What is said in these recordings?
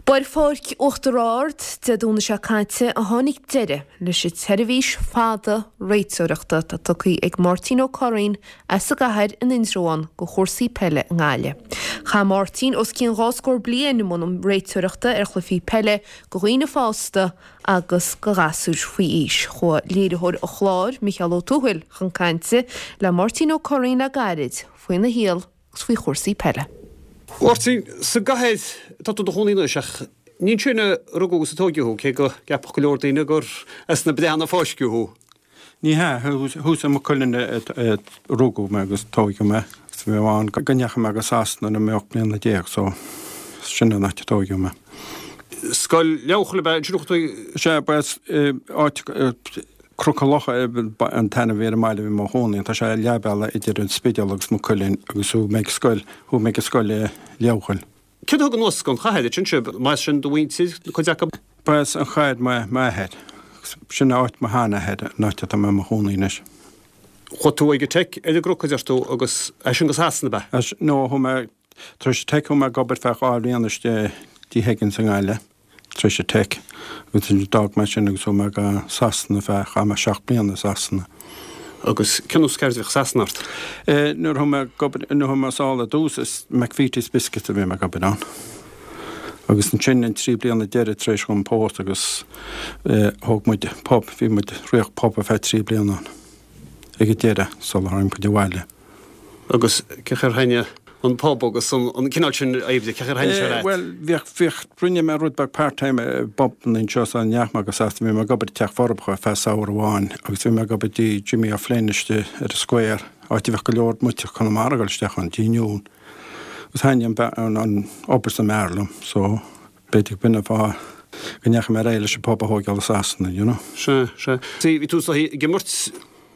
Ba ar Pháirc Uachtar Ard Dé Domhnaigh seo caite a tháinig deireadh leis an tseirbhís fada réiteoireachta atá tugtha ag Máirtín Ó Curraoin as an gcathair in Indreabhán do chúrsaí peile i nGaillimh. Chaith Máirtín os cionn dhá scór bliain i mbun réiteoireachta ar chluichí peile do dhaoine fásta agus do ghasúir faoi aois. Chuaigh léiritheoir an chláir, Micheál Ó Tuathail, chun cainte le Máirtín Ó Curraoin le gairid faoina shaol agus faoi chúrsaí peile. Mháirtín, sa gcathair atá tú i do chónaí anois ach ní ansin a rugadh agus a tóigeadh thú, cé go gceapfadh go leor daoine gur as na Breathna a fáisceadh thú. Ní hea, thuas i Maigh Cuilinn a rugadh mé agus tóigeadh mé agus bhí mé ann go ndeachaigh mé go Sasana nuair a bhí mé 18 mbliana so sin an áit a tóigeadh mé. Scoil Leabharchoill ab ea ansin a chuaigh tú? Sea, ba as áit Cnoc an Locha an t-ainm a bhí ar an mbaile a bhí mé i mo chónaí ann. Tá sé leath bealaigh idir an Spidéal agus Maigh Cuilinn agus chuaigh mé ag scoil, chuaigh mé ag scoil i Leabharchoill. Céard a thug anuas gon chathair ansin sibh? Mba as sin do mhuintir, cuid acu? Ba as an chathair m'athair. Sin áit mo sheanathair, an áit atá mé i mo chónaí anois. Chuaigh tú ag an Tech ar an gCnoc a deir tú agus as sin go Sasana ab ea? As, no, chuaigh mé, tar éis an Tech chuaigh mé ag obair feadh 2 bhliain istigh i dTigh Higgins i nGaillimh. tar éis an Tech agus ansin d'fhág mé sin agus chuaigh mé go Sasana feadh, chaith mé 7 bliana i Sasana. Agus cén nós ceirde a bhíodh i Sasana ort? Eh, nuair a chuaigh mé ag obair, nuair a chuaigh mé sall ar dtús is McVitie's Biscuits a bhí mé ag obair ann. Agus ansin an 3 bliana deiridh tar éis dhom pósadh agus eh, thóg muid pub, bhí muid, ritheadh pub ar feadh 3 bliana ann ag an deireadh sular tháinig muid abhaile. Agus cén chaoi ar thaitnigh an pub agus an cineál sin oibre, cén chaoi ar thaitnigh sé leat? Bhuel, bhíodh, bhíodh, rinne mé rud beag part-time i bpubanna anseo sula ndeachaigh mé go Sasana, bhí mé ag obair i dTeach Forbacha ar feadh samhradh amháin agus bhí mé ag obair dtí Jimmy O'Flynn istigh ar an Square, áit a bhíodh go leor muintir Chonamara ag dul isteach ann, dtí Noon. Agus thaitnigh an, an, an obair san b'fhearr liom, so b'fhéidir b'in an fáth go ndeachaigh mé ar aghaidh leis an pub a thóigeáil i Sasana, you know. Sea, sea. Bhí tú ag imirt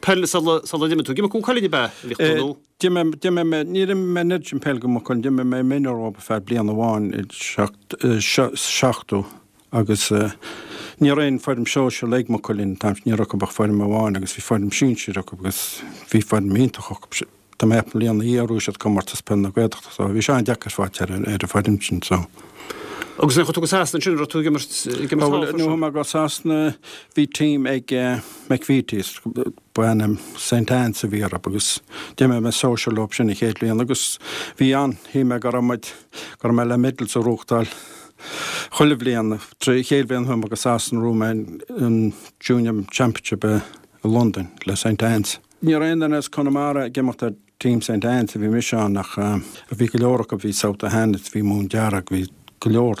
peile sula sula d'imigh tú. Ag imirt do Mhaigh Cuilinn ab ea a bhíodh tú nó? D'imir, d'imir mé, níor imir mé an oiread sin peile do Mhaigh Cuilinn, d'imir mé minor dhóibh ar feadh bliain amháin i 70 agus ní raibh aon foirm sóisear ag Maigh Cuilinn an t-am sin, ní raibh acu ach foirm amháin agus bhí foirm sinsir acu agus bhí foirm iontach acu. Tá mé ag ceapadh an bhliain ina dhiaidh bhuaigh siad comórtas peil na Gaeltachta so bhí sé an-deacair fáilt ar an bhfoireann sin so. Agus nuair a chuaigh tú go Sasana ansin, raibh tú ag imirt, ag imirt thall freisin? Nuair a chuaigh mé go Sasana bhí team ag McVitie's, ba ainm St Anne's a bhí orthu agus d'imir mé sóisear leo sin an chéad bhliain agus bhí an, shíl mé go raibh muid, go raibh mé le medals a ghnóthachtáil chuile bhliain. An chéad bhliain a chuaigh mé go Sasana bhuaigh mé an Junior Championship i Londain le St Anne's. Ní raibh aon duine as Conamara ag imeacht ar Team St Anne's a bhí mise ann ach bhí go leor acu, bhí South O'Hanlons, bhí Móin Dearg, bhí go leor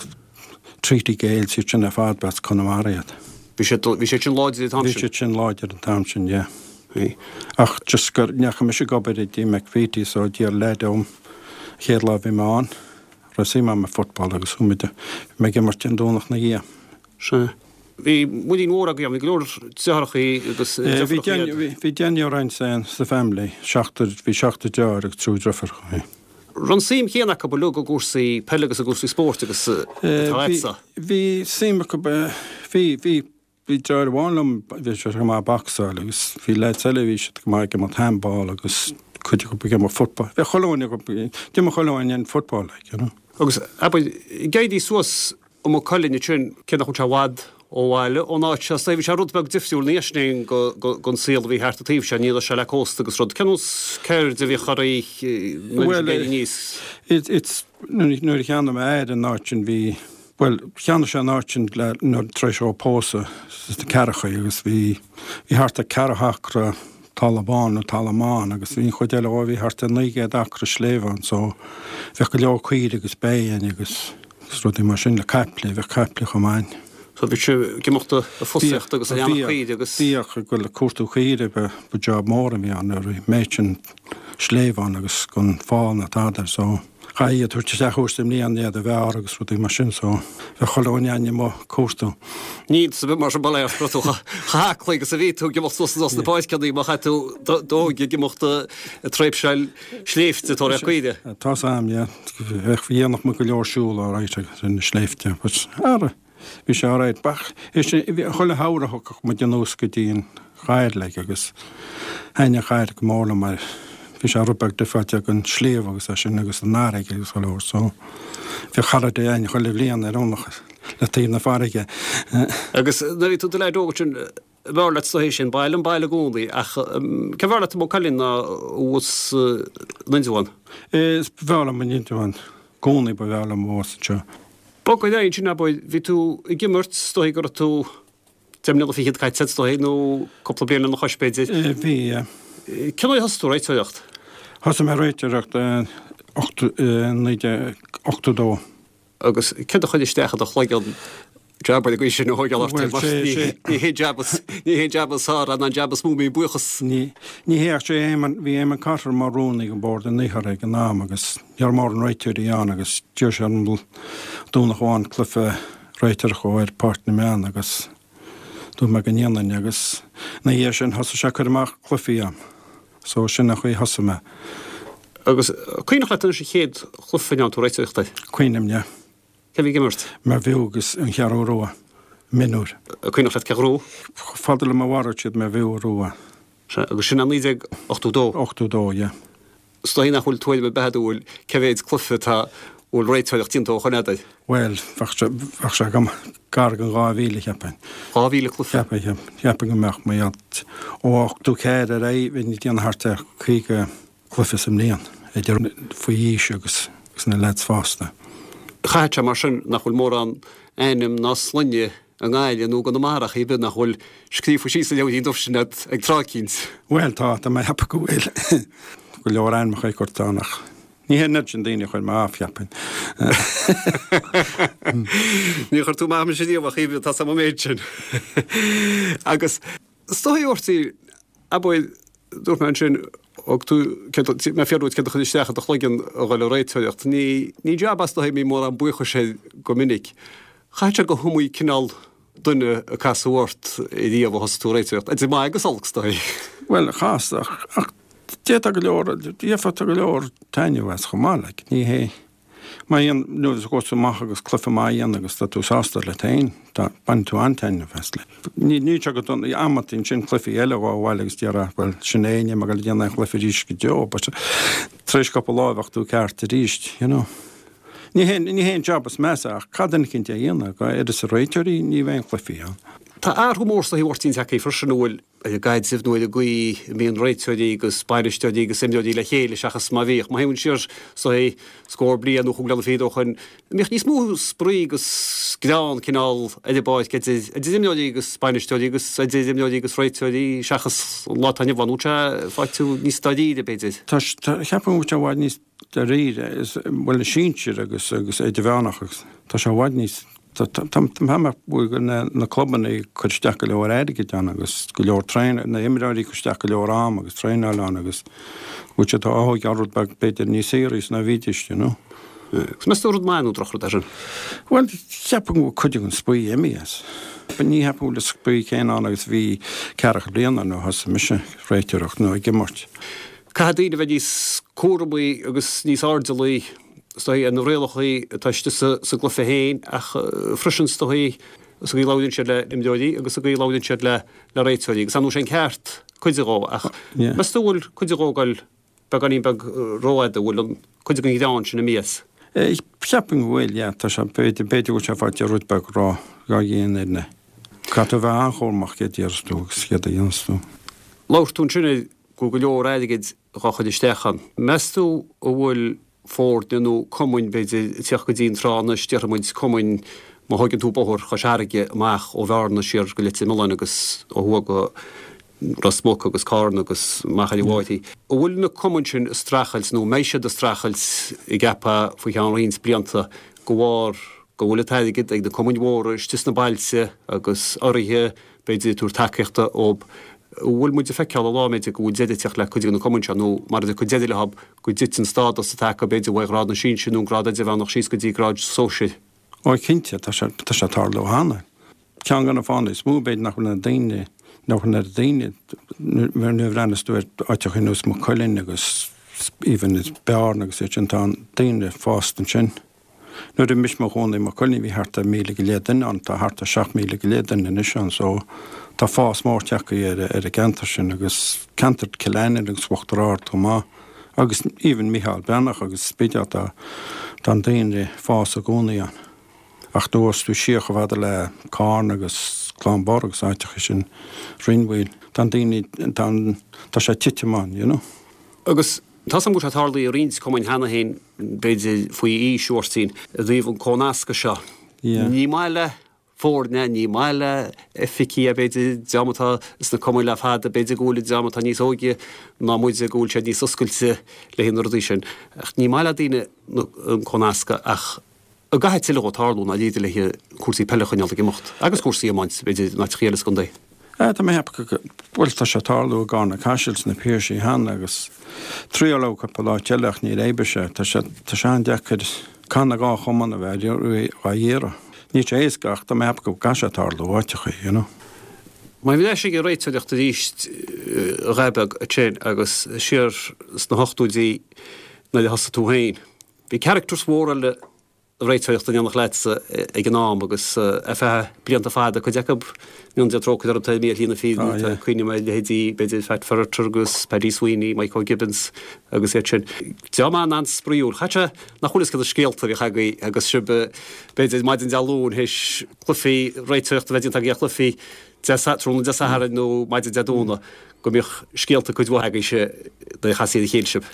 Treaty Gaels, iad sin ar fad ba as Conamara iad. Bhí siad, bhí siad sin láidir an t-am sin? Bhí siad sin láidir an t-am sin, yeah. Bhí. Ach just go ndeachaigh mise ag obair i dtí McVitie so d'iarr leaid orm an chéad lá a bhí mé ann, raibh suim agam i football agus chuaigh muid, bhí mé ag imirt an Domhnach 'na dhiaidh. Sea. Bhí muinín mhór agaibh, bhí go leor deartháireacha agus deirfiúracha iad. Bhí deichniúr againn sa family, seachtar, bhí seachtar deartháir agus triúr deirfiúracha. Raibh an suim chéanna acu uilig i gcúrsaí peile agus i gcúrsaí spóirt agus atá agatsa? Bhí suim acu, bhí, bhí, bhí deartháir amháin liom, bhí sé go maith ag bocsáil agus bhí lads eile, bhí siad go maith ag imirt handball agus cuid acu ag imirt football. Bhí chuile dhuine acu, d'imir chuile dhuine an football like, you know. Agus abair, ag éirí suas i Maigh Cuilinn ansin, cé nach bhfuil sé i bhfad ó bhaile, ón áit seo, bhí sé rud beag difriúil ina dhiaidh sin gon saol a bhí thart an taobh seo, ní raibh sé le cósta agus rud. Cén nós ceird a bhíodh oraibh nuair a bhí sibh ag éirí aníos? It's, nuair a cheannaigh m'athair an áit sin bhí, bhuel, cheannaigh sé an áit sin le, nuair, tar éis dhó pósadh sna ceathrachaí agus bhí, bhí thart ar ceathrú acra talamh bán nó talamh ann agus bhí an chuid eile dhó, bhí thart ar 900 acra sléibhe ann so bheadh go leor caoire agus bé againn agus rudaí mar sin le caiple, bheadh caiple chomh maith. So bhí sibh ag imeacht ag fosaíocht agus ag aonach caoire agus. Bhíodh, ag dul ag cuartú caoire, ba job mór a bhí ann nuair a bhí an méid sin sléibhe ann agus gan fál ná tada so chaithfí iad a thabhairt isteach uair sa mbliain iad a bhearradh agus rudaí mar sin so bheadh chuile dhuine againn amuigh ag cuartú. Ní iontas ar bith mar sin bail ó Dhia ort chomh haclaí agus a bhí tú ag imeacht suas anuas na páirceanna má chaith tú d'óige ag imeacht ag tréimhseáil sléibhte ag tóraíocht caoire. Tá's a'm, yeah. Bheadh, dhéanadh muid go leor siúl alright ar na sléibhte but ara bhí sé alright. Ach chuile shamhradh thiocfadh muid anuas go dtí an chathair like agus thaitnigh an chathair go mór liom mar. Bhí sé rud beag difreáilte ag an sliabh agus é sin agus an fharraige agus go leor so bhíodh holiday againn chuile bhliain ar aonach le taobh na farraige. Agus nuair a bhí tú i do leaid óg ansin, b'fhearr leat is dóichí sin baile an baile i gcónaí ach cé b'fhearr leat Maigh Cuilinn ná thuas in Indreabhán? Is b'fhearr liom in Indreabhán i gcónaí ba bhreá liom thuas anseo. Bog ar aghaidh ansin abair, bhí tú ag imirt, is dóichí go raibh tú 10 mbliana fichead caite is dóichí, nó cúpla bliain lena chois b'fhéidir. Bhí, yeah. Cén uair a thosaigh tú ag réiteoireacht? Thosaigh mé ag réiteoireacht i 1982. Agus céard a chuir isteach i do chloigeann jab ar an gcaoi sin a thógáil ort mar ní hé jab ní hé jab is fearr ná an jab is mó a mbíonn buíochas. Ní ní hé ach sé Éamonn bhí Éamonn Cotter mar rúnaí ag an bord an Iarthair ag an am agus ní raibh mórán réiteoirí ann agus d'iarr sé orm Domhnach amháin cluiche réiteoireacht dhó ar Pháirc na mBeann agus dúirt mé go ndéanfainn agus ina dhiaidh sin thosaigh sé ag cur amach cluichí a'm. So sin an chaoi a thosaigh mé. Agus cuimhneach leat anois an chéad chluiche a ndearna tú réiteoireacht air? Cuimhním, yeah. Cé a bhí ag imirt? Mervue agus an Cheathrú Rua, mionúir. Cuimhneach leat cé a ghnóthaigh? Chomh fada le mo bharúil siad Mervue a ghnóthaigh. Sea, agus sin é 1982? 82, yeah. Is dóigh nach bhfuil tuairim ar bith agat an bhfuil cé mhéid cluiche atá a bhfuil réiteoireacht déanta ó shoin agat air? Bhuel, bheadh sé, bheadh sé agam gar don 2,000, cheapfainn. 2,000 cluiche? Cheapfainn, cheapfainn go mbeadh, mar gheall, ó 84 ar aghaidh, bhínn ag déanamh thart ar 50 cluiche sa mbliain, idir faoi aois agus na leaids fásta. Chaithfeadh sé mar sin nach bhfuil mórán ainm ná sloinne i nGaillimh nó i gConamara ar chor ar bith nach bhfuil scríofa síos sa leabhairín dubh sin agat ag tráth eicínt. Bhuel, tá, tá mé ag ceapadh go bhfuil go leor ainmneacha curtha ann ach ní hé an oiread sin daoine a chuir mé off, cheapfainn. Níor chuir tú amach mise riamh ach tá a fhios agam an méid sin. Agus is dóigh Mháirtín, abair, dúirt mé ansin, thug tú, mé ag fiafraí díot céard a chuir isteach i do chloigeann a dhul ag réiteoireacht. Ní, ní jab é is dóigh a mbíonn mórán buíochais air go minic. Chaithfeadh sé go hiomaí cineál duine a casadh ort riamh ó thosaigh tú ag réiteoireacht, idir maith agus olc, is dóigh. Bhuel, chas, ach, ach d'fhéadfá go leor, d'fhéadfá go leor taitneamh as chomh maith, like, ní hé, má dhéan, nuair a ghabhas tú amach agus cluiche maith a dhéanamh agus tá tú sásta leat féin, tá, baineann tú an-taitneamh as, like. Ní, níl sé go dona, amantaí ansin cluichí eile a ghabháil abhaile agus déarfá, bhuel, sin é, níl mé ag dul a dhéanamh aon chluiche arís go deo, but tar éis cúpla lá bheadh tú ceart arís, you know. Ní hé, ní hé an jab is measa ach caithfidh duine eicínt é a dhéanamh, go uireasa réiteoirí, ní bheidh aon chluichí ann. Tá athrú mór is dóigh a Mháirtín tagtha freisin an bhfuil ar an gcaidreamh nó ar an gcaoi a mbíonn réiteoirí agus bainisteoirí agus imreoirí le chéile seachas mar a bhíodh. Má théann siar is dóigh scór bliain nó chúig bliana fichead ó shoin, an mbíodh níos mó spraoi agus greann cineál ar an bpáirc idir idir imreoirí agus bainisteoirí agus idir imreoirí agus réiteoirí seachas an lá atá inniu ann. An bhfuil sé faighte níos dáiríre b'fhéidir? Tá, cheapfainn go bhfuil sé i bhfad níos dáiríre, is, bhuel, na sinsir agus, agus idirmheánach agus tá sé i bhfad níos, tá, tá, tá, tá mé go na, na clubanna ag cur isteach go leor airgid ann agus go leor traen, na imreoirí ag cur isteach go leor am agus traenáil ann agus go bhfuil siad á thógáil rud beag b'fhéidir níos saoraí ná a bhídís, you know. Agus meas tú rud maith nó drochrud é sin? Bhuel, cheapfainn go bhfuil cuid den spraoi imithe as. Ní cheapfainn go bhfuil an spraoi céanna ann agus a bhí ceathracha bliain ó nuair a thosaigh mise ag réiteoireacht nó ag imirt. Caithfidh daoine a bheith níos cúramaí agus níos airdeallaí, is dóigh, ar na rialacha atá istigh sa gcluiche féin ach freisin, is dóigh, sa gcaoi a labhraíonn siad le imreoirí agus sa gcaoi a labhraíonn siad le réiteoirí. Agus ar ndóigh sé an ceart cuid dhó ach meas tú an bhfuil cuid dhó ag dul beagáinín beag rófhada, an bhfuil an cuid den ghreann sin imithe as? Cheapfainn go bhfuil, yeah. Tá sé, b'fhéidir, b'fhéidir go bhfuil sé faighte rud beag ró, ró-dhian ar na. Caithfidh tú a bheith an-chúramach céard a déarfas tú agus céard a dhéanfas tú. Labhair tú ansin ar go bhfuil go leor airgid dhá chur isteach ann. Meas tú an bhfuil foirne nó cumainn, b'fhéidir, ag teacht go dtí an tráth anois, déarfaidh muid cumainn, má thóigeann tú bóthar Chois Fharraige amach ó Bhearna siar go Leitir Mealláin agus ó thuaidh go Ros Muc agus Carna agus Machaire Bháthaí, an bhfuil na cumainn sin ag streachailt nó an mbeidh siad ag streachailt an gceapfá faoi cheann roinnt blianta de bharr go bhfuil an t-airgead ag na cumainn mhóra istigh sna bailte agus urraithe b'fhéidir ag tabhairt tacaíochta dhób. An bhfuil muid ag feiceáil an lá, b'fhéidir, go bhfuil deireadh ag teacht le cuid de na cumainn seo, nó mara dtiocfaidh deireadh leo, go dtiteann stádas atá acu, b'fhéidir, ó ghrád na sinsear nó an grád idirmheánach síos go dtí grád sóisir? Ó, cinnte, tá sé, tá sé ag tarlú cheana. Ceann de na fáthanna is mó, b'fhéidir, nach bhfuil na daoine, nach bhfuil na daoine, nuair a bhreathnas tú ar áiteacha ar nós Maigh Cuilinn agus even Bearna agus iad sin, tá an daoine fásta ansin. Nuair a bhí mise i mo chónaí i Maigh Cuilinn bhí thart ar 1,000 go leith duine ann, tá thart ar 7,000 go leith duine anois ann so tá fás mór tagtha ar ar an gceantar sin agus ceantar Cill Ainnín agus Uachtar Ard chomh maith. Agus even Micheál Breathnach agus Spidéal tá tá an daonra ag fás i gcónaí ann. Ach nuair a ghabhas tú siar chomh fada le Carna agus Cluain Bheirn agus áiteacha sin, Rinn Mhaoil, tá an daoine, tá an, tá sé ag titim ann, you know. Agus tá 's agam go bhfuil sé tarlaithe i roinnt cumainn cheana féin, b'fhéidir faoi aois, a Mháirtín, i dtaobh an comhnascadh seo. Yeah. Ní maith le foirne, ní maith le oifigigh, b'fhéidir, dream atá sna cumainn le fada, b'fhéidir go bhfuil an dream atá níos óige ná muide, go bhfuil siad níos oscailte le haghaidh na rudaí sin. Ach ní maith le daoine an comhnascadh ach an gcaithfidh tuilleadh dhó tarlú i ndáiríre le haghaidh cúrsaí peile a choinneáil ag imeacht agus cúrsaí iomáint, b'fhéidir, in áiteachaí eile sa gcontae. Tá mé ag ceapadh go bhfuil, tá sé ag tarlú i gCarna Caiseal sna Piarsaigh cheana agus triaileadh cúpla áit eile ach níor oibrigh sé. Tá sé, tá sé an-deacair caithfidh na dhá chumann a bheith á iarraidh. Níl sé éasca ach tá mé ag ceapadh go gcaithfidh sé tarlú áiteachaí, you know. Má bhí leis ag an réiteoireacht arís a dhath beag ansin agus siar sna hochtóidí nuair a thosaigh tú féin, bhí characters mhóra eile réiteoireachta in éineacht leatsa ag an am agus ar feadh blianta fada, cuid acu go ndéana Dia trócaire orthu, tá imithe ar shlí na fírinne, tá cuimhním ar leithéidí b'fhéidir Pat Ferriter agus Paddy Sweeney, Mike O'Gibbons agus iad sin. Dream an-an-spraíúil. Chaith sé nach bhfuil fhios cé na scéalta a bhíodh agaibh agus sibh b'fhéidir maidin Dé Luain théis cluichí réiteoireachta a bheith déanta agaibh ar chluichí Dé tráthnóna Dé Sathairn nó maidin Dé Domhnaigh go mbíodh scéalta cuid mhaith agaibhse nuair a chastaí ar a chéile sibh.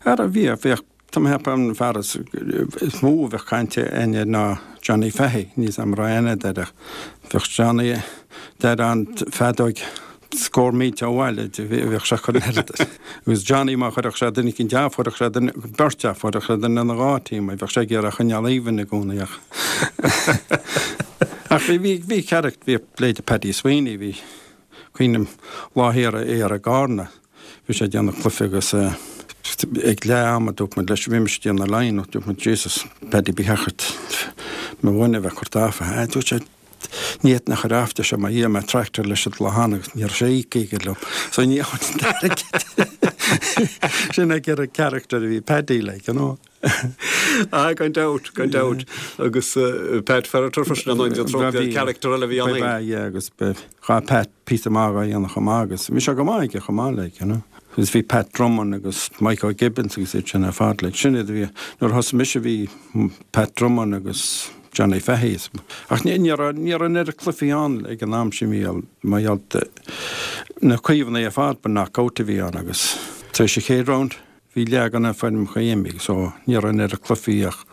Ara bhíodh, bhíodh Tá mé ag ceapadh an fear is mó a bheadh caint againn air ná Johnny Fahy, níl 'fhios a'm an raibh aithne a'd air ach bheadh Johnny deir an feadóig scór mílte ó bhaile bheadh sé chur oiread agus Johnny má chuirfeadh sé duine eicínt off chuirfeadh sé duine beirt off chuirfeadh sé duine ina dhá team bheadh sé ag iarraidh a choinneáil even i gcónaí ach ach bhí bhí bhí character bhí leithéide Paddy Sweeney bhí cuimhním lá thiar thiar i gCarna Bhí sé ag déanamh cluiche agus ag leath ama dúirt muid leis, bhí mise ag déanamh line dúirt muid Jesus Paddy ba cheart mo dhuine a bheith curtha off. Ah dúirt sé ní fhéadfainn a chur off deir sé mar dhíol mé tractor leis an lá cheana agus ní raibh sé íoctha aige liom. So ní fhéadfainn an t-airgead. Sin é an character a bhí Paddy like, you know. Ah, gan dabht, gan dabht. Agus Pat Ferriter freisin an Dia trócaire character eile a bhí ann. Ba ea, yeah, agus ghabh Pat píosa maith dhá dhéanamh chomh maith agus bhí sé go maith aige chomh maith like, you know. Agus bhí Pat Drummond agus Mike O'Gibbons agus iad sin ar fad like. Sin iad a bhí, nuair a thosaigh mise bhí Pat Drummond agus Johnny Fahy. Ach ní, ní raibh, ní raibh an oiread cluichí ann ag an am sin bhí mar gheall na Caomhánaigh ar fad ba knock-out a bhí ann agus tar éis an chéad round Bhí leath de na foirmeacha imithe so ní raibh an oiread cluichí ach.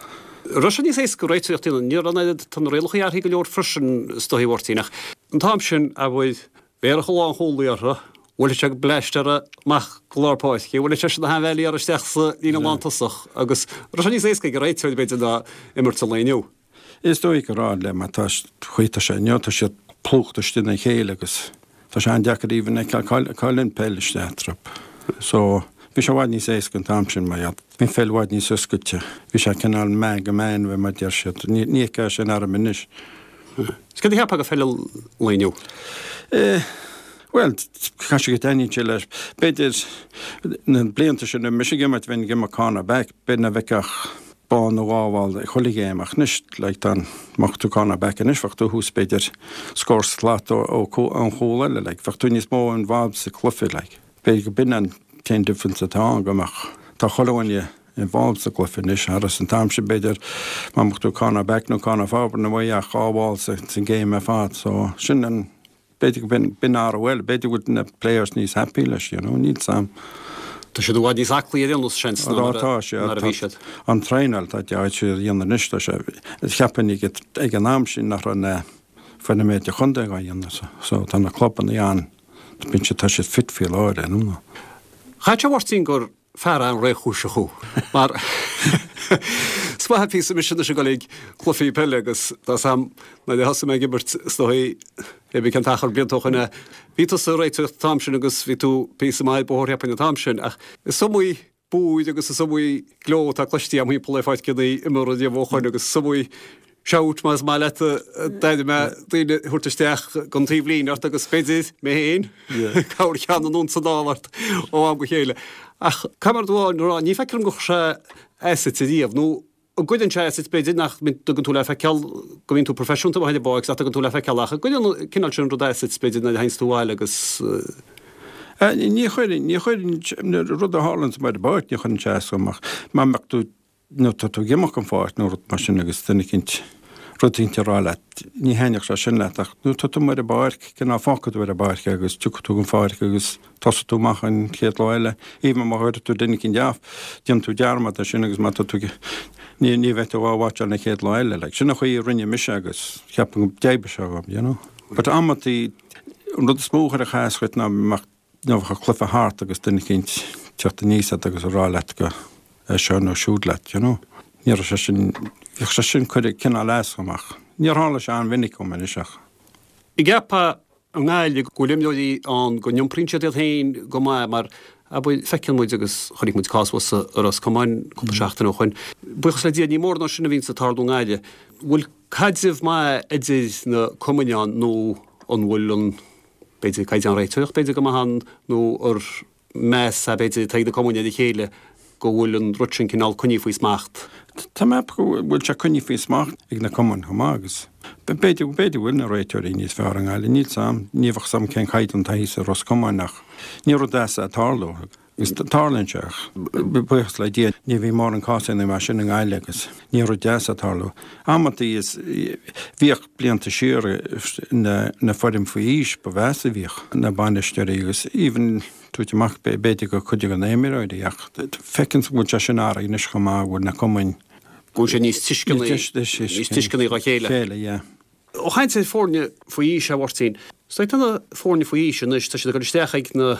Raibh sé níos éasca réiteoireacht a dhéanamh. Ní raibh an oiread, tá na rialacha athraithe go leor freisin is dóigh a Mháirtín ach an t-am sin abair bhéarfadh an lánchúlaí orthu, bhuailfeadh sé bleaist orthu amach go lár páirce, bhuailfeadh seisean na hainmhéalaí orthu isteach sa líne lántosach agus raibh sé níos éasca ag an réiteoir b'fhéidir ná imirt an lae inniu. Is dóigh go raibh le mar tá chaoi tá sé inniu tá siad plúchta istigh ina chéile agus tá sé an-deacair even a fheiceáil cá bhfuil an peil isteach eatarthu. So bhí sé i bhfad níos éasca an t-am sin mar bhí an pheil i bhfad níos oscailte. Bhí sé cineál man go man mar a deir siad. Ní fheicfeá sin orm anois. Is céard a cheapfá de pheil an lae inniu? Eh, bhuel, caithfidh sé go dtaitníonn sé leis. B'fhéidir na blianta sin roimh mise ag imirt bheinn ag imirt corner back, b'fhéidir nach bhfeicfeá ach ball nó dhá bhall ag chuile ghéim ach anois like tá an mbeadh tú corner back anois bheadh tú thuas b'fhéidir scór slat ó ón chúl eile like bheadh tú níos mó involved sa cluiche like b'fhéidir go b'in an t-aon difference atá ann go mbeadh tá chuile dhuine involved sa gcluiche anois thar an t-am sin b'fhéidir má mbeadh tú corner back nó corner forward ní bheadh ach dhá bhall sa sa game ar fad so sin an B'fhéidir go b'in athrú eile, b'fhéidir go bhfuil na players níos happy leis, you know, níl 's a'm. Tá siad i bhfad níos aclaí ar aon nós, seans, ná mar a bhí siad. An traenáil atá siad a dhéanamh anois, tá sé, cheapfainn ag an am sin nach raibh na foirne idirchontae á dhéanamh, so tá na clubanna an, bíonn siad, tá siad fit faoi láthair, you know. Chaithfeadh sé a Mháirtín gur fear an-réchúiseach thú mar is maith an píosa mise anois ag dul ag cluichí peile agus tá 's a'm nuair a thosaigh mé ag imirt is dóigh pé bí cén t-achar blianta ó shoin é bhí tusa ag réiteoireacht an t-am sin agus bhí tú píosa maith ar bóthar cheapfainn an t-am sin ach is iomaí búir agus is iomaí gleo atá cloiste agam thimpeall ar pháirceanna imeartha riamh ó shoin agus is iomaí shout más maith leat a d'airigh mé daoine a thabhairt isteach gon taobhlíne ort agus b'fhéidir mé féin corrcheann anonn is anall ort ó am go chéile. Ach caithfidh mé rud amháin a rá, ní feictear dom gur chuir sé as duit ariamh, nó an gcuireann sé as duit b'fhéidir nach dtugann tú le feiceáil go mbíonn tú proifisiúnta amuigh ar an bpáirc nach dtugann tú le feiceáil ach an gcuireann an cineál sin rud as duit b'fhéidir nuair a théanns tú abhaile agus. Ní chuireann, ní chuireann, rud a tharlaíonn amuigh ar an bpáirc, ní chuireann sé as dom ach má mbeadh tú, nó tá tú ag imeacht den pháirc nó rud mar sin agus duine eicínt, rud eicínt a rá leat, ní thaitneodh sé sin leat ach nuair atá tú amuigh ar an bpáirc, cineál fágfaidh tú ar an bpáirc é agus tiocfaidh tú den pháirc agus tosóidh tú amach an chéad lá eile. Even má chuireann tú duine eicínt off, déanann tú dearmad de sin agus má tá tú ag, ní, ní bheidh tú á watcháil an chéad lá eile. Like, sin an chaoi a rinne mise agus ceapaim go d'oibrigh sé dhom, you know. But amantaí, an rud is mó a chuirfeadh as dhuit ná mbeadh Nuair a bheadh cluiche thart agus duine eicínt teacht aníos ort agus a rá leat go é seo nó siúd leat, you know. Ní raibh sé sin, bhíodh sé sin cuireadh cineál as dhom ach níor tharla sé an-mhinic dhom anois ach. An gceapfá i nGaillimh go bhfuil imreoirí ann go n-iompraíonn siad iad féin go maith mar abair feiceann muid agus chonaic muid cás thuas i Ros Comáin cúpla seachtain ó shoin. Buíochas le Dia ní mórán sin a bhíonns ag tarlú i nGaillimh. Bhfuil caidreamh maith idir na cumainn ann nó an bhfuil an b'fhéidir, caighdeán réiteoireachta b'fhéidir go maith ann nó ar meas é b'fhéidir atá ag na cumainn ar a chéile go bhfuil an rud sin cineál coinnithe faoi smacht. Tá mé ag ceapadh go bhfuil sé coinnithe faoi smacht ag na cumainn chomh maith agus b'fhéidir, b'fhéidir go bhfuil na réiteoirí níos fearr i nGaillimh, níl 's a'm, ní bheadh 's a'm cén caighdeán atá thíos i Ros Comáin ach ní rud deas é ag tarlú. Agus tarlaíonn sé ach, buíochas le Dia, ní bhíonn mórán cásanna mar sin i nGaillimh agus ní rud deas ag tarlú. Amantaí is bhíodh blianta siar na na foireann faoi aois ba mheasa a bhíodh na bainisteoirí agus even tabhairt amach b'fhéidir go cuid de na imreoirí ach feiceann go bhfuil sé sin athraithe anois chomh maith go bhfuil na cumainn Go bhfuil sé níos tuisceanaí níos tuisceanaí dá chéile. Chéile, yeah. Ag caint ar foirne faoi aois, a Mháirtín. Is tá na foirne faoi aois anois, tá siad ag dul isteach ag na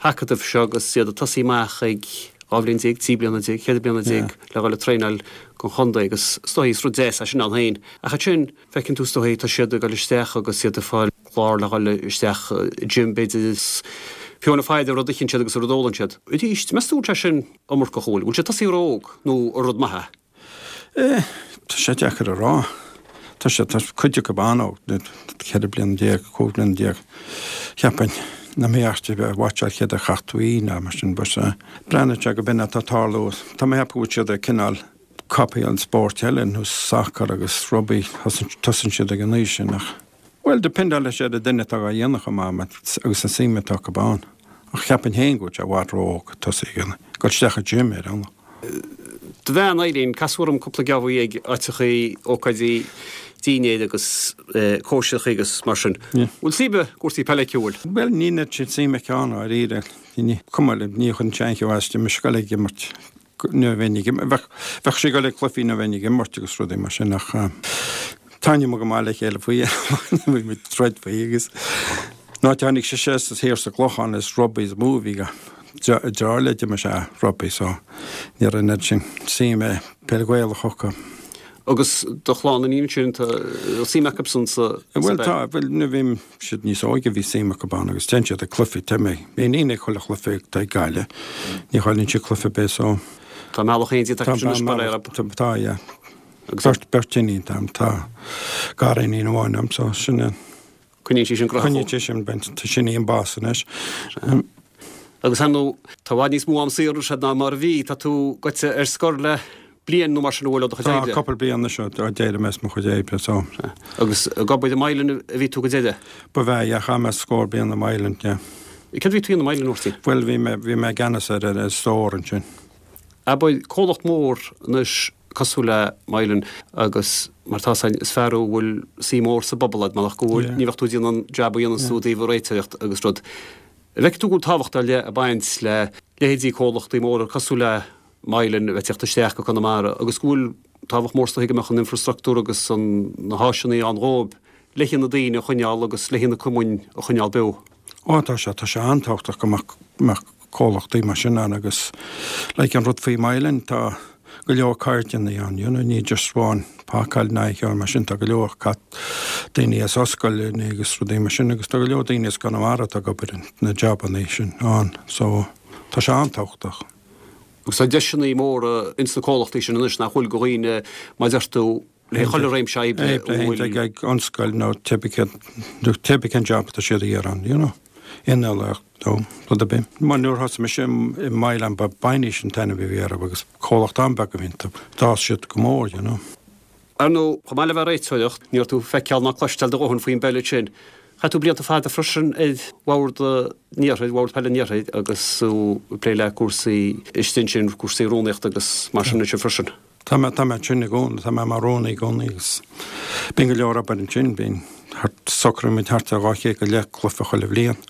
hacadaimh seo agus iad ag tosaí amach ag 12 bhliain, 13 bliana, 14 bliana le dhul ag traenáil don chontae agus is dóigh is rud deas é sin ann féin. Ach ansin, feiceann tú is dóigh, tá siad ag dul isteach agus iad ag fáil clár le dhul isteach i gym b'fhéidir is bona fide an rud a itheann siad agus an rud a ólann siad. Arís, meas tú an bhfuil sé sin iomarcach, an bhfuil? Bhfuil sé ag tosaí ró-óg nó an rud maith é? Eh, tá sé deacair a rá. Tá sé, tá cuid acu an-óg, 14 bliana, 15 bliana, cheapfainn, nach mbeadh ort a bheith ag watcháil céard a chaith tú í ná mar sin, but eh, breathnaíonn sé go b'in atá ag tarlú. Tá mé ag ceapadh go bhfuil siad ag cineál copy an spóirt eile, nó sacar agus rugbaí, tosaíonn siad ag an aois sin ach, bhuel, dependálann sé ar an duine atá á dhéanamh chomh maith agus an suim atá acu ann. Ach cheapfainn féin go bhfuil sé i bhfad ró-óg tosaí ag dul isteach i gym ar aon. Do bhean, Eileen, casadh orm cúpla geábh ag áiteachaí, ócáidí dinnéir agus cóisireachaí agus mar sin. Bhfuil suim i gcúrsaí peile aici, an bhfuil? Bhuel, níl an oiread sin suim aici ann, dháiríre. Ní, cuma liom, ní chuireann sé aon cheo as di, mise ag dul ag imirt nuair a bheinn ag imirt, bheadh, bheadh sí ag dul ag cluichí nuair a bheinn ag imirt agus rudaí mar sin ach taitníonn muid go maith le chéile faoi, bhí muid ag troid faoi agus an áit a tháinig sise as thiar sa gClochán is rugbaí is mó a bhí Deartháir léi d'imir sé rugbaí so ní raibh an oiread sin suim i peil Ghaelach acu. Agus do chlann iníon ansin, tá suim acusan sa Bhuel tá, bhuel nuair a bhí siad níos óige bhí suim acu ann agus téann siad ag cluichí, tá m'iníon ag chuile chluiche atá ag Gaillimh, ní chailleann sí cluiche ar bith so. Tá mealladh éigin déanta acu sin anois mar é. Tá, yeah. Beirt, beirt iníon atá agam, tá gariníon amháin agam so sin é. Coinníonn sí sin graitheach. Coinníonn sí sin, bent, sin í an boss anois. Agus ar ndóigh, tá i bhfad níos mó am saor anois ná mar a bhí. Tá tú goite ar scor le bliain nó mar sin an bhfuil ó do chuid oibre? Tá, cúpla bliain anois ó d'éirigh mé as mo chuid oibre, so. Agus ag obair i Mylan a bhí tú go deireadh? Ba bhea, yeah, chaith mé scór bliain i Mylan, yeah. Céard a bhí tú a dhéanamh i Mylan, a Mháirtín? Bhuel, bhí mé, bhí mé i gceannas ar an stór ansin. Abair, comhlacht mór anois cosúil le Mylan agus mar tá 's againn is fear thú a bhfuil suim mór sa bpobal agat marach go bhfuil, ní bheadh tú ag déanamh an jab a dhéananns tú i dtaobh an réiteoireacht agus rud. An bhfeiceann tú go bhfuil tábhacht ar leith ag baint le leithéidí comhlachtaí móra cosúil le Mylan a bheith ag teacht isteach go Conamara agus go bhfuil tábhacht mór is dóigh go mbeadh an infrastructúr agus an na háiseanna ann dhóibh le haghaidh na daoine a choinneáil agus le haghaidh na cumainn a choinneáil beo. Ó tá sé, tá sé an-tábhachtach go mbeadh comhlachtaí mar sin ann agus like an rud faoi Mylan tá go leor cairdeanna ann, you know, ní just amháin pacáil ná aon cheo mar sin, tá go leor cat daoine as ollscoileanna agus rudaí mar sin agus tá go leor daoine as Conamara atá ag obair na jabanna sin ann so tá sé an-tábhachtach. Agus tá deiseanna móra ins na comhlachtaí sin anois nach bhfuil go dhaoine mar deir tú le chuile réimse oibre a bhfuil. Ag ag ollscoil nó cibé cén cibé cén job atá siad a iarraidh ann, you know. Innealtóireacht nó rud ar bith. Mar nuair a thosaigh mise i Mylan ba Biney's an t-ainm a bhí orthu agus comhlacht an-bheag a bhí iontu. D'fhás siad go mór, you know. Ar ndóigh, chomh maith le bheith ag réiteoireacht, ní raibh tú ag feiceáil ná cloisteáil do dhóthain faoin bpeil ansin. Chaith tú blianta fada freisin ar Bhord an Iarthair, Bhord Peile an Iarthair agus tú ag plé le cúrsaí istigh ansin, cúrsaí rúnaíochta agus mar sin ansin freisin. Tá mé, tá mé ansin i gcónaí, tá mé mar rúnaí i gcónaí agus bíonn go leor obair ansin, bíonn thart, socraíonn muid thart ar 200 go leith cluiche chuile bhliain.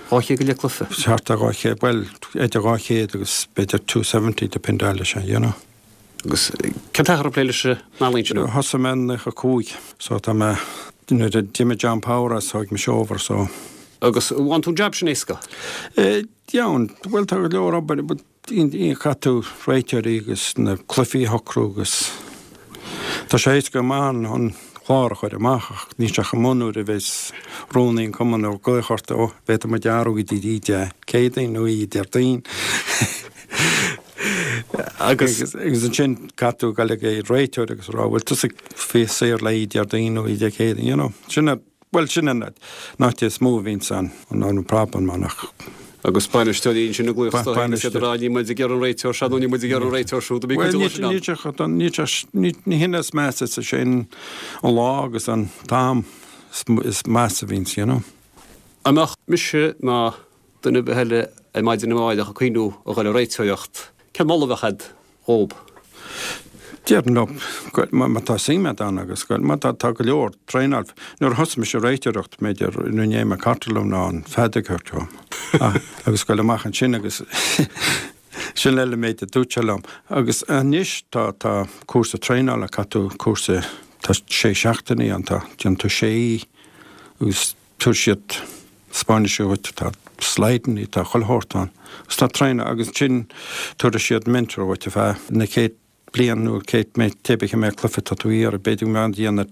200 go leith cluiche? Thart ar 200, bhuel, idir 200 agus b'fhéidir 270 dependáil leis, you know. Agus cén t-achar ag plé leis an ealaín sin? Thosaigh mé in 95 so tá mé, nuair a d'imigh John Power as thóig mise over so. Agus an bhfaigheann tú an jab sin éasca? Eh, dheamhan, bhuel tá go leor obair, but caithfidh tú réiteoirí agus na cluichí a shocrú agus tá sé éasca go maith an clár a chur amach ach níl sé chomh maith nuair a bheas rúnaí an chumainn ag glaoch ort, ó, bhféadfadh muid athrú go dtí Dé Céadaoin nó oíche Déardaoin. Agus ansin caithfidh tú dul ag an réiteoir agus rá bhfuil tusa faoi saor le oíche Déardaoin nó oíche Dé Céadaoin, you know. Sin a, bhuel sin an áit is mó a bhíonns an, an problem ann ach. Agus bainisteoirí ansin ag glaoch isteach agus iad ag rá níl muid ag iarraidh an réiteoir seo nó níl muid ag iarraidh an réiteoir siúd, bíonn cuid de sin ann. Bhuel níl sé, ní hin is measa, is é an lá agus an t-am is measa a bhíonns, you know. An mbeadh mise ná duine ar bith eile ar maidin amárach ag cuimhniú a dhul ag réiteoireacht, cén moladh a bheadh a'd dhób? Déarfainn leo, má tá suim a'd ann agus má tá, tá go leor traenáil. Nuair a thosaigh mise ag réiteoireacht, b'fhéidir, ní raibh mé cartlann ná an feadóg agam agus goil amach ansin agus sin eile méid a dúirt sé liom. Agus anois tá, tá cúrsa traenála, caithfidh tú cúrsa, tá sé seachtainí ann, tá, déanann tú sé agus Tabharfaidh siad taispeánfaidh siad dhuit, tá slideanna, tá chuile shórt ann. Agus tá traenáil agus ansin tabharfaidh siad mentor dhuit ar feadh na chéad bliain nó chéad mé cé bith cé mhéad cluiche atá tú a iarraidh. B'fhéidir go mbeadh déanamh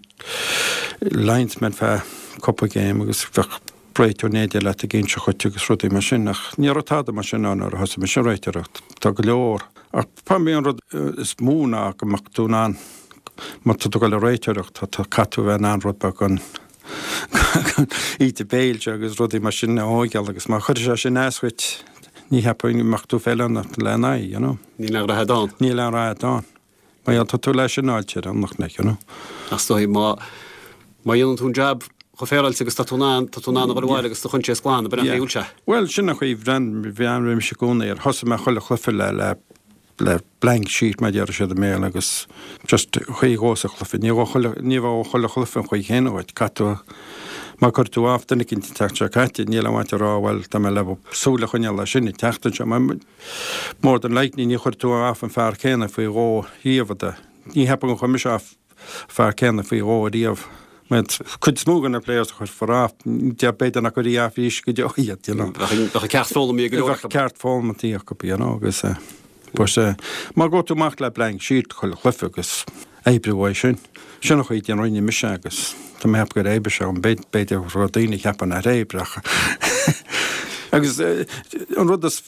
linesman feadh cúpla game agus bheadh réiteoir in éindí leat ag inse dhuit agus rudaí mar sin ach ní raibh tada mar sin ann nuair a thosaigh mise ag réiteoireacht. Tá go leor ach probably an rud is mó ná go mbeadh tú in ann má tá tú ag dul ag réiteoireacht tá caithfidh tú a bheith in ann rud beag an íde béil seo agus rudaí mar sin a thóigeáil agus má chuirfidh sé sin as dhuit ní cheapfainn go mbeadh tú feiliúnach lena aghaidh, you know. Níl aon rath ann. Níl aon rath ann. Mar gheall tá tú leis an áit ar an like, you know. Ach is dóigh má má dhéanann tú an jab chomh féaráilte agus tá tú in ann, tá tú in ann a dhul abhaile agus do choinsias glan, ab in an chaoi a bhfuil sé? Bhuel, sin an chaoi, bhreathnaigh mise i gcónaí air. Thosaigh mé chuile chluiche le le le blank sheet mar a déarfadh siad i mBéarla agus just chaoi dhó sa chluiche. Ní bheadh chuile, ní bheadh chuile chluiche an chaoi chéanna dhuit. Caithfidh tú, má chuir tú off duine eicínt an tseachtain seo caite, níl aon mhaith a rá bhuel tá mé le súil a choinneáil air sin an tseachtain seo. Mar more than likely ní chuir tú off an fear céanna faoi dhó riamh. Ní cheapaim gur chuir mise off fear céanna faoi dhó riamh. Mar cuid is mó de na players a chuirfear off, b'fhéidir nach gcuirfí off arís go deo iad, you know. Bheadh an ceacht foghlamtha ag go leor acu. Bheadh ceacht foghlamtha acu, you know, agus but má ghabh tú amach le blank sheet chuile chluiche agus oibriú uaidh sin, sin an chaoi a rinne mise agus tá mé ag ceapadh gur oibrigh sé, b'fhéidir go raibh daoine ag ceapadh nár oibrigh ach agus an rud is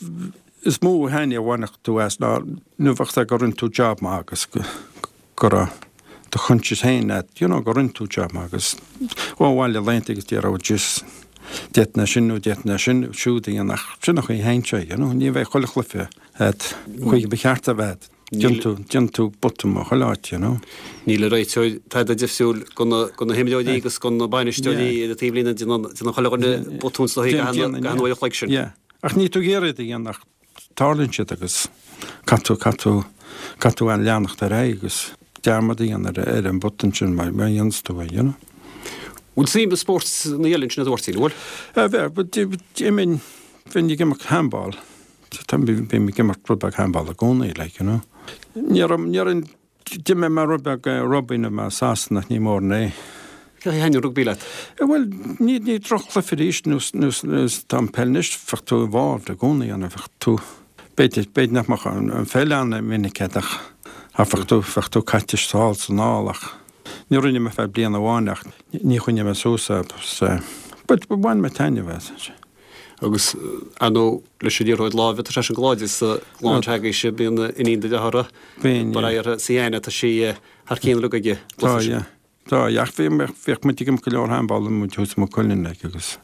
is mó thaitneamh a bhainfeadh tú as ná nuair a bheadh sé go rinne tú job maith agus go raibh do choinsias féin leat, you know, go rinne tú job maith agus ó bhaile laethanta agus déarfá oh jeez, d'fhéadfainn é sin nó d'fhéadfainn é sin siúd a dhéanamh ach sin an chaoi a théann sé, you know, ní bheidh chuile chluiche agat chaoi ba cheart a bheith, déanann tú, déanann tú botún ó chuile áit, you know. Níl an réiteoir tada difriúil go na, go na himreoirí agus go na bainisteoirí ar an taobhlíne, déanann, déanann chuile dhuine botún sa gcaithfidh an uair a chloig sin. Yeah, ach níl tú ag iarraidh iad a dhéanamh ach Tarlaíonn siad agus caithfidh tú, caithfidh tú, caithfidh tú leanacht ar aghaidh agus dearmad a dhéanamh ar, ar an botún sin má, má dhéananns tú é, you know. Bhfuil suim i spórt na eile ansin a Mháirtín, an bhfuil? Eh, bheadh, d'iminn, bheinn ag imirt handball, tá, bím ag imirt rud beag handball i gcónaí, like, you know. Ní raibh, ní raibh, D'imir mé rud beag rugbaí nuair a bhí mé i Sasana ach ní mórán é. Cén chaoi a thaitníonn rugbaí leat? Bhuel, ní ní droch-chluiche arís nós nós nós atá an peil anois, bheadh tú involved i gcónaí ann, bheadh tú, b'fhéidir, b'fhéidir nach mbeadh an an pheil an-mhinic agat ach ach bheadh tú, bheadh tú caite sall is anall ach ní rinne mé feadh bliain amháin ach ní choinnigh mé suas é but bhain mé taitneamh as. Agus, ar ndóigh, leis an liathróid láimhe, tá sé sin go láidir sa gclann s'agaibhse, bíonn iníon do dhearthára, Bíonn, yeah. uirthi, Sienna, tá sí thar cionn uilig ag an Tá, gcluiche sin. yeah. Tá, yeah. Ach bhí, bhíodh muid ag imirt go leor handball nuair a bhí muid thuas i Maigh Cuilinn, like, agus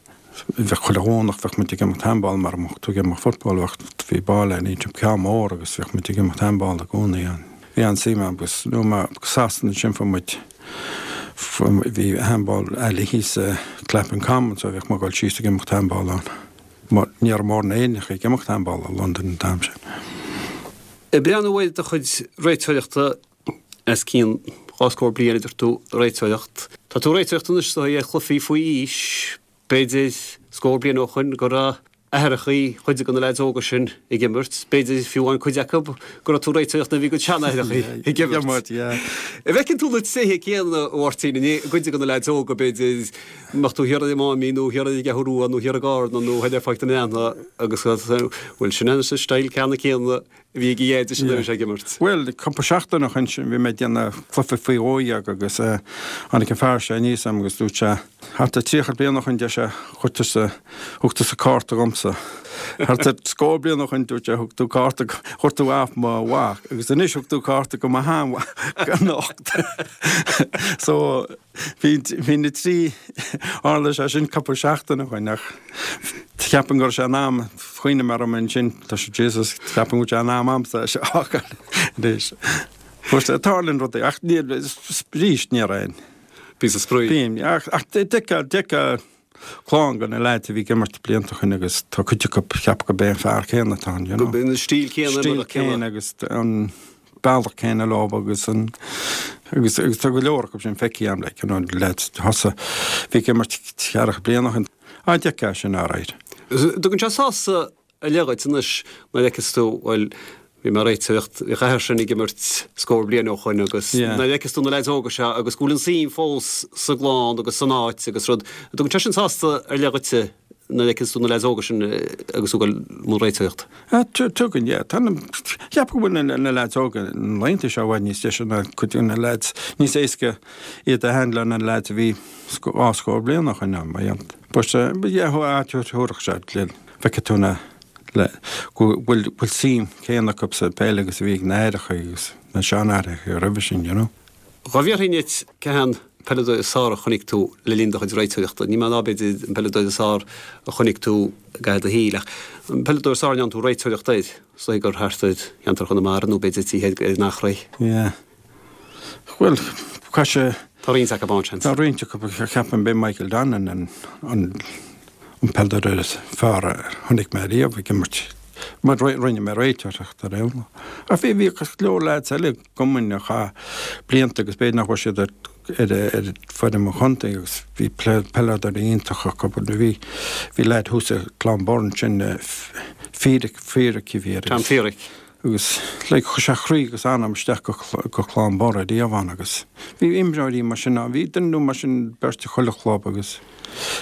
bheadh chuile Dhomhnach bheadh muid ag imirt handball mar a mbeadh tú ag imirt football, bheadh, bhí ball ann, ceann mór agus bhíodh muid ag imirt handball i gcónaí ann. Bhí an-suim agam agus nuair a bhí mé i Sasana ansin fuair muid. Bhí handball alley thíos i Clapham Common so bhíodh mé ag dul síos ag imirt handball ann. Mar ní raibh mórán Éireannach ag imirt handball i Londain an t-am sin. Ag breathnú ar do chuid réiteoireachta os cionn dhá scór bliain a deir tú ag réiteoireacht. Tá tú ag réiteoireacht anois is dóigh ar chluichí faoi aois, b'fhéidir scór bliain ó shoin go raibh aithreachaí chuid de na leaids óga sin ag imirt, b'fhéidir fiú amháin cuid acu go raibh tú ag réiteoireacht nuair a bhí a gcuid seanaithreachaí ag imirt. An bhfeiceann tú na tréithe céanna, a Mháirtín, i gcuid de na leaids óga, b'fhéidir, mbeadh tú thiar ar an Máimín nó thiar ar an gCeathrú Rua nó thiar i gCarna nó thiar ar Pháirc na mBreathnach agus bhuel sin an style ceanna céanna a bhí ag a dheaid nuair a bhí sé ag imirt. Bhuel, cúpla seachtain ó shoin sin bhí mé ag déanamh cluiche faoi 12 agus tháinig an fear seo aníos agam agus dúirt sé, thart ar 30 bliain ó shoin deir sé, chuir tusa, thug tusa cárta dhomsa. Thart ar scór bliain ó shoin dúirt sé, thug tú cárta, chuir tú off mo mhac agus anois thug tú cárta go mo sheanmhac anocht. So, Bhí, bhí na trí, tharla sé sin cúpla seachtain ó shoin ach cheapfainn go raibh sé in am, chuimhnigh mé orm ansin, tá sé, Jesus, cheapfainn go bhfuil sé in am a'msa é seo a fhágáil anois. But tarlaíonn rudaí ach níl, arís ní raibh aon. Píosa spraoi. Bíonn, ach, ach d'fheicfeá, d'fheicfeá clann de na leaids a bhí ag imirt blianta ó shoin agus tá cuid acu cheapfá gurb é an fear céanna atá ann, you know. Gurb é an stíl céanna, Stíl céanna agus an bealach céanna leo agus an agus agus tá go leor acu sin feicthe agam like, you know, leaids thosaigh bhí ag imirt ceathracha bliain ó shin. Á d'fheicfeá sin alright. Tugann sé sásamh ar leith dhuit anois nuair a fheiceas tú, bhuel, bhí mé ag réiteoireacht, bhí an fear sin ag imirt scór bliain ó shoin agus nuair a fheiceas tú na leaids óga seo agus go bhfuil an suim fós sa gclann agus san áit agus rud, tugann sé sin sásamh ar leith dhuitse nuair a fheiceas tú na leaids óga sin agus tú ag dul i mbun réiteoireacht. Tugann, yeah. Tá na, cheapfainn go bhfuil na leaids óga na laethanta seo i bhfad níos deise ná cuid de na leaids, níos éasca iad a handle ná na leaids a bhí dhá scór bliain ó shoin, mar dheamhan. But, yeah, thabharfadh sé, Feicfidh tú na, le, go bhfuil, bhfuil suim céanna acu sa peil agus a bhí ag na haithreacha agus na seanaithreacha roimhe sin, you know. Dhá bhfiafraínn díot cé hé an peileadóir is fearr a chonaic tú le linn do chuid réiteoireachta, ní mé ná b'fhéidir an peileadóir is fearr a chonaic tú i gcaitheamh do shaoil ach an peileadóir is fearr a ndearna tú réiteoireacht air, is dóigh gur thart ar cheantar Chonamara nó b'fhéidir títhe ar an Eachréidh. Yeah. Bhuel, caithfidh sé. Tá roinnt acu ann, seans. Tá roinnt acu, ceapaim, b'é Michael Donnan an an peileadóir is fearr a chonaic mé riamh ag imirt. Mar rinne mé réiteoireacht ar aon lá. Ach bhí bhí go leor leaids eile i gcumainn a chaith blianta agus b'fhéidir nach bhfuil siad ar ar ar foireann an chontae agus bhí peileadóirí iontacha acu. Bhí bhí leaid thuas i Clonbur ansin, Feerick, Feerick a bhí air. Tom Feerick. Agus like chuir sé croí agus anam isteach go go Clonbur ariamh ann agus bhí imreoirí mar sin ann. Bhí duine nó mar sin beirt i chuile chlub agus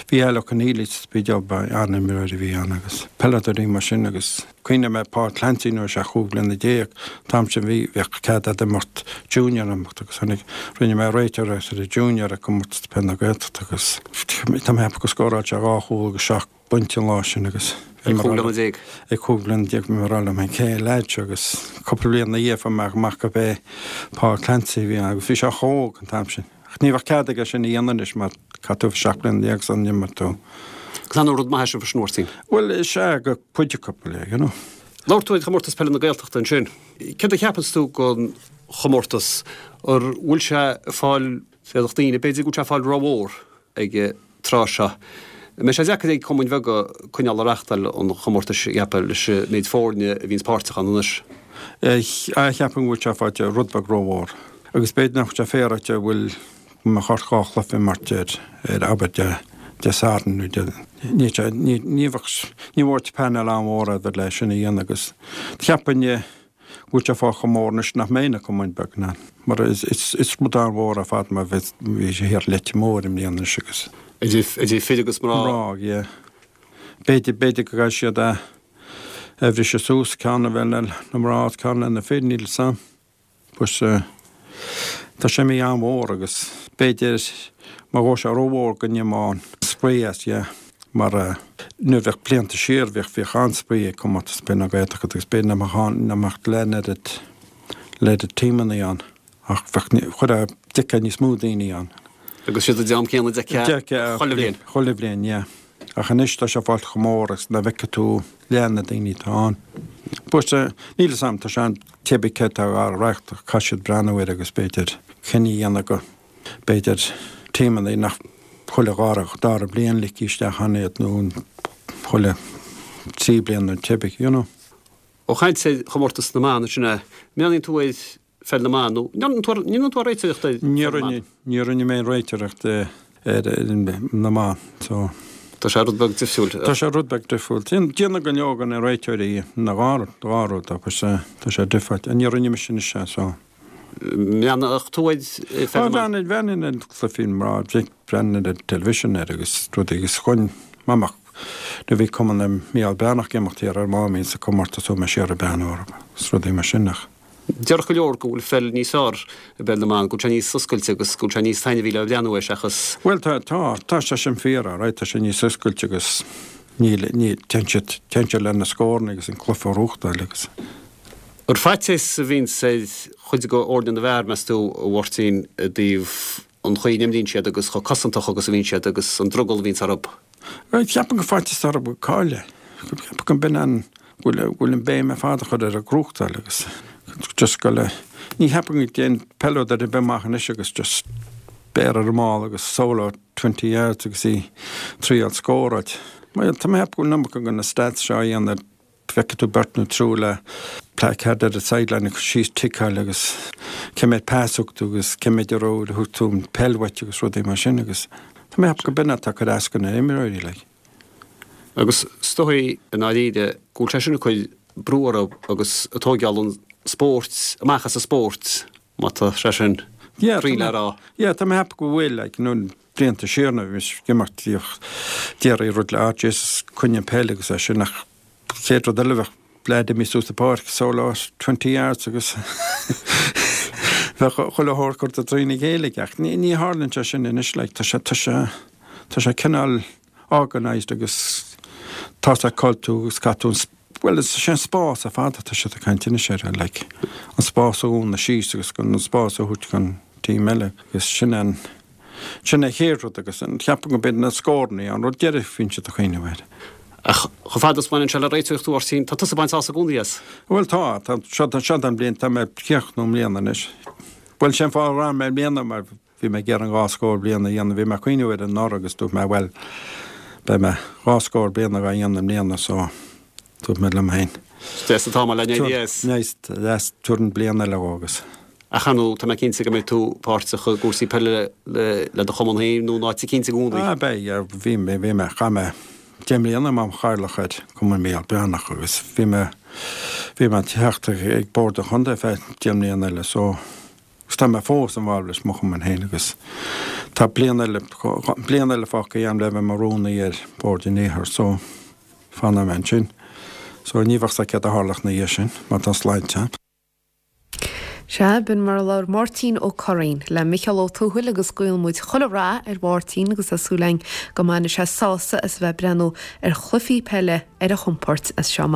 bhí Al Ó Conaola sa Spidéal ba an-imreoir a bhí ann agus peileadóirí mar sin agus cuimhním ar Paul Clancy nuair a bhí sé 15 bliana an t-am sin bhí bheadh cead a'd imirt junior imirt agus tháinig rinne mé réiteoireacht ar an junior ag comórtas peil na Gaeltachta agus tá mé ag ceapadh go scóráil sé dhá chúl agus seacht bpointe an lá sin agus bhí mé ag rá liom, ag 15 bliana bhí mé ag rá liom féin cé an leaid seo agus cúpla bliain ina dhiaidh fuair mé amach gurb é Paul Clancy a bhí ann agus bhí sé chomh hóg an t-am sin. Ach ní bheadh cead aige sin a dhéanamh anois mar caithfidh tú 17 bliana sula n-imreoidh tú. Agus an rud maith é sin freisin, a Mháirtín. Bhuel, is ea, go cuid acu, you know. Labhair tú ar Chomórtas Peile na Gaeltachta ansin. Céard a cheapanns tú den chomórtas? An bhfuil sé ag fáil, féadfadh daoine, b'fhéidir go bhfuil sé ag fáil rómhór ag an tráth seo. An mbeidh sé deacair ag cumainn bheaga coinneáil ag reachtáil an chomórtais, a cheapfá, leis an méid foirne a bhíonns páirteach ann anois? Cheapfainn go bhfuil sé faighte rud beag rómhór agus b'fhéidir nach bhfuil sé féaráilte bhfuil go mbeadh ort dhá chluiche imirt ar ar abair Dé Dé Sathairn nó Dé ní ní ní bheadh ní bheadh panel an-mhór agat le sin a dhéanamh agus cheapfainn go bhfuil sé fágtha chomh mór anois nach mbeidh na cumainn beaga in ann, mar is rud an-mhór ar fad mar bhí sé thiar i Leitir Móir i mbliana anois agus. Idir fir agus mná. Mná, yeah. B'fhéidir, b'fhéidir go gcaithfidh siad é a bhriseadh suas, ceann a bheith le na mná agus ceann le na fir, níl 'fhios a'm. But tá sé imithe an-mhór agus b'fhéidir má ghabh sé rómhór go n-imeodh an spraoi as, yeah. Mar nuair bheadh blianta siar bhíodh bhíodh an-spraoi ag Comórtas Peile na Gaeltachta agus b'fhéidir nach mbeadh ann nach mbeadh leath an oiread oiread tímeanna ann ach bheadh chuir d'fheicfeá níos mó daoine ann. Agus siad an dream céanna a d'fheicfeá chuile bhliain. Chuile bhliain, yeah. Ach anois tá sé fáilte chomh mór agus nach bhfeicfidh tú leath na daoine atá ann. But níl 'fhios a'm, tá sé an cibé cé atá á reáchtáil, caithfidh siad breathnú air agus b'fhéidir cinneadh a dhéanamh go. B'fhéidir tímeanna nach chuile dhara, dara bliain ligtí isteach ann iad nó chuile thrí bliana nó cibé, you know. Ó chaint ar chomórtas na mban ansin, an mbreathnaíonn tú ar pheil na mban nó an ndéanann tú réiteoireacht ar pheil na mban? Ní rinne mé aon réiteoireacht ar na mban so. Tá sé rud beag difriúil. Tá sé rud beag difriúil. Déanann go leor de na réiteoirí na dhá rud agus tá sé difriúil. Ní rinne mise anois é so. mbreathnódh tú ar pheil na mban? Bhreathnaínn ar chluichí na mná, bhreathnaínn ar an television air agus rudaí agus chuaigh mé amach nuair a bhí cumann Mícheál Breathnach ag imeacht thiar ar Máimín sa comórtas chuaigh mé siar ag breathnú orthu agus rudaí mar sin ach. Déarfadh go leor go bhfuil pheil níos fearr i bpeil na mban, go bhfuil sé níos oscailte agus go bhfuil sé níos taitneamhaí le breathnú air seachas. Bhuel tá, tá, tá sé sin fíor, alright, tá sé níos oscailte agus níl, níl, téann siad, téann siad le na scóranna agus an cluiche a ghnóthachtáil agus. Ar faitíos a bhíonns ar chuid de fhoirne na bhfear, meas tú, a Mháirtín, i dtaobh an chaoi a n-imríonn siad agus chomh cosantach agus a bhíonn siad agus an drogall a bhíonns orthu? Bhuel, ceapaim gur faitíos orthu go caillfidh. Ceapaim go mb'in an, go bhfuil an béim ar fad á chur ar an ghnóthachtáil agus just go le, ní cheapaim go dtéann peileadóir ar bith amach anois agus just béar ar an mball agus solo 20 yards agus í triail scóráil. Bhuel, tá mé ag ceapadh go bhfuil an iomarca de na stats seo á dhéanamh ar Feicfidh tú beirt nó triúr le placard ar an sideline ag cur síos ticeáil agus cé mhéad pas a thug tú agus cé mhéad a raibh thug tú an peil uait agus rudaí mar sin agus tá mé ag ceapadh go b'in atá ag cur as do na imreoirí like. Agus is dóigh i ndáiríre go bhfuil sé sin ag cur brú orthu agus ag tóigeáil an spóirt amach as an spórt má tá sé sin cuí le rá. Yeah tá mé ag ceapadh go bhfuil like nó blianta siar nuair a bhí mise ag imirt bhíodh déarfaí rud le ah Jesus coinnigh an peil agus é sin ach chéad rud eile bheadh leaid imithe suas an pháirc solo 20 yards agus bheadh chuile shórt curtha trína chéile aige ach ní ní tharlaíonn sé sin anois like tá sé tá sé tá sé cineál organised agus tá sé cáil tú agus caithfidh tú an bhuel is é an spás ar fad atá siad ag caint anois air like an spás a dhúnadh síos agus an spás a thabhairt don team eile agus sin an Sin an chéad rud agus ceapaim go mb'iad na scóranna an rud deiridh a bhíonn siad ag cuimhneamh air. Ach chomh fada is baineann sé le réiteoireacht a Mháirtín, tá tusa ag baint sásamh i gcónaí as. Bhuel tá, tá, seo, seo an bhliain, tá mé ag críochnú i mbliana anois. Bhuel sin fáth a raibh mé i mbliana mar bhí mé ag iarraidh an dhá scór bliain a dhéanamh, bhí mé ag cuimhneamh air anuraidh agus dúirt mé bhuel beidh mé dhá scór bliain á dhéanamh i mbliana so Dúirt mé liom féin. Deas an t-am le n-éirí as. Nice, deas, tabharfainn bliain eile dhó agus. Ach ar ndóigh, tá mé cinnte go mbeidh tú páirteach i gcúrsaí peile le do chumann féin nó in áit eicínt i gcónaí. Ah, beidh, yeah, bhí mé, bhí mé, chaith mé deich mbliana mar chathaoirleach ar Chumann Mícheál Breathnach agus bhí mé, bhí mé teachta ag Bord an Chontae feadh deich mbliana eile so, agus tá mé fós involved leis mo chumann féin agus tá bliain eile, bliain eile fágtha agam le bheith mar rúnaí ar Bhord an Iarthair so. Fanfaidh mé ansin. So ní bheadh 's a'd céard a tharlódh ina dhiaidh sin, má tá sláinte a'm. Sea, b'in mar a labhair Máirtín Ó Curraoin le Micheál Ó Tuathail agus guíonn muid chuile rath ar Mháirtín agus tá súil againn go mbainfidh sé sásamh as a bheith ag breathnú ar chluichí peile ar a chompord as seo amach.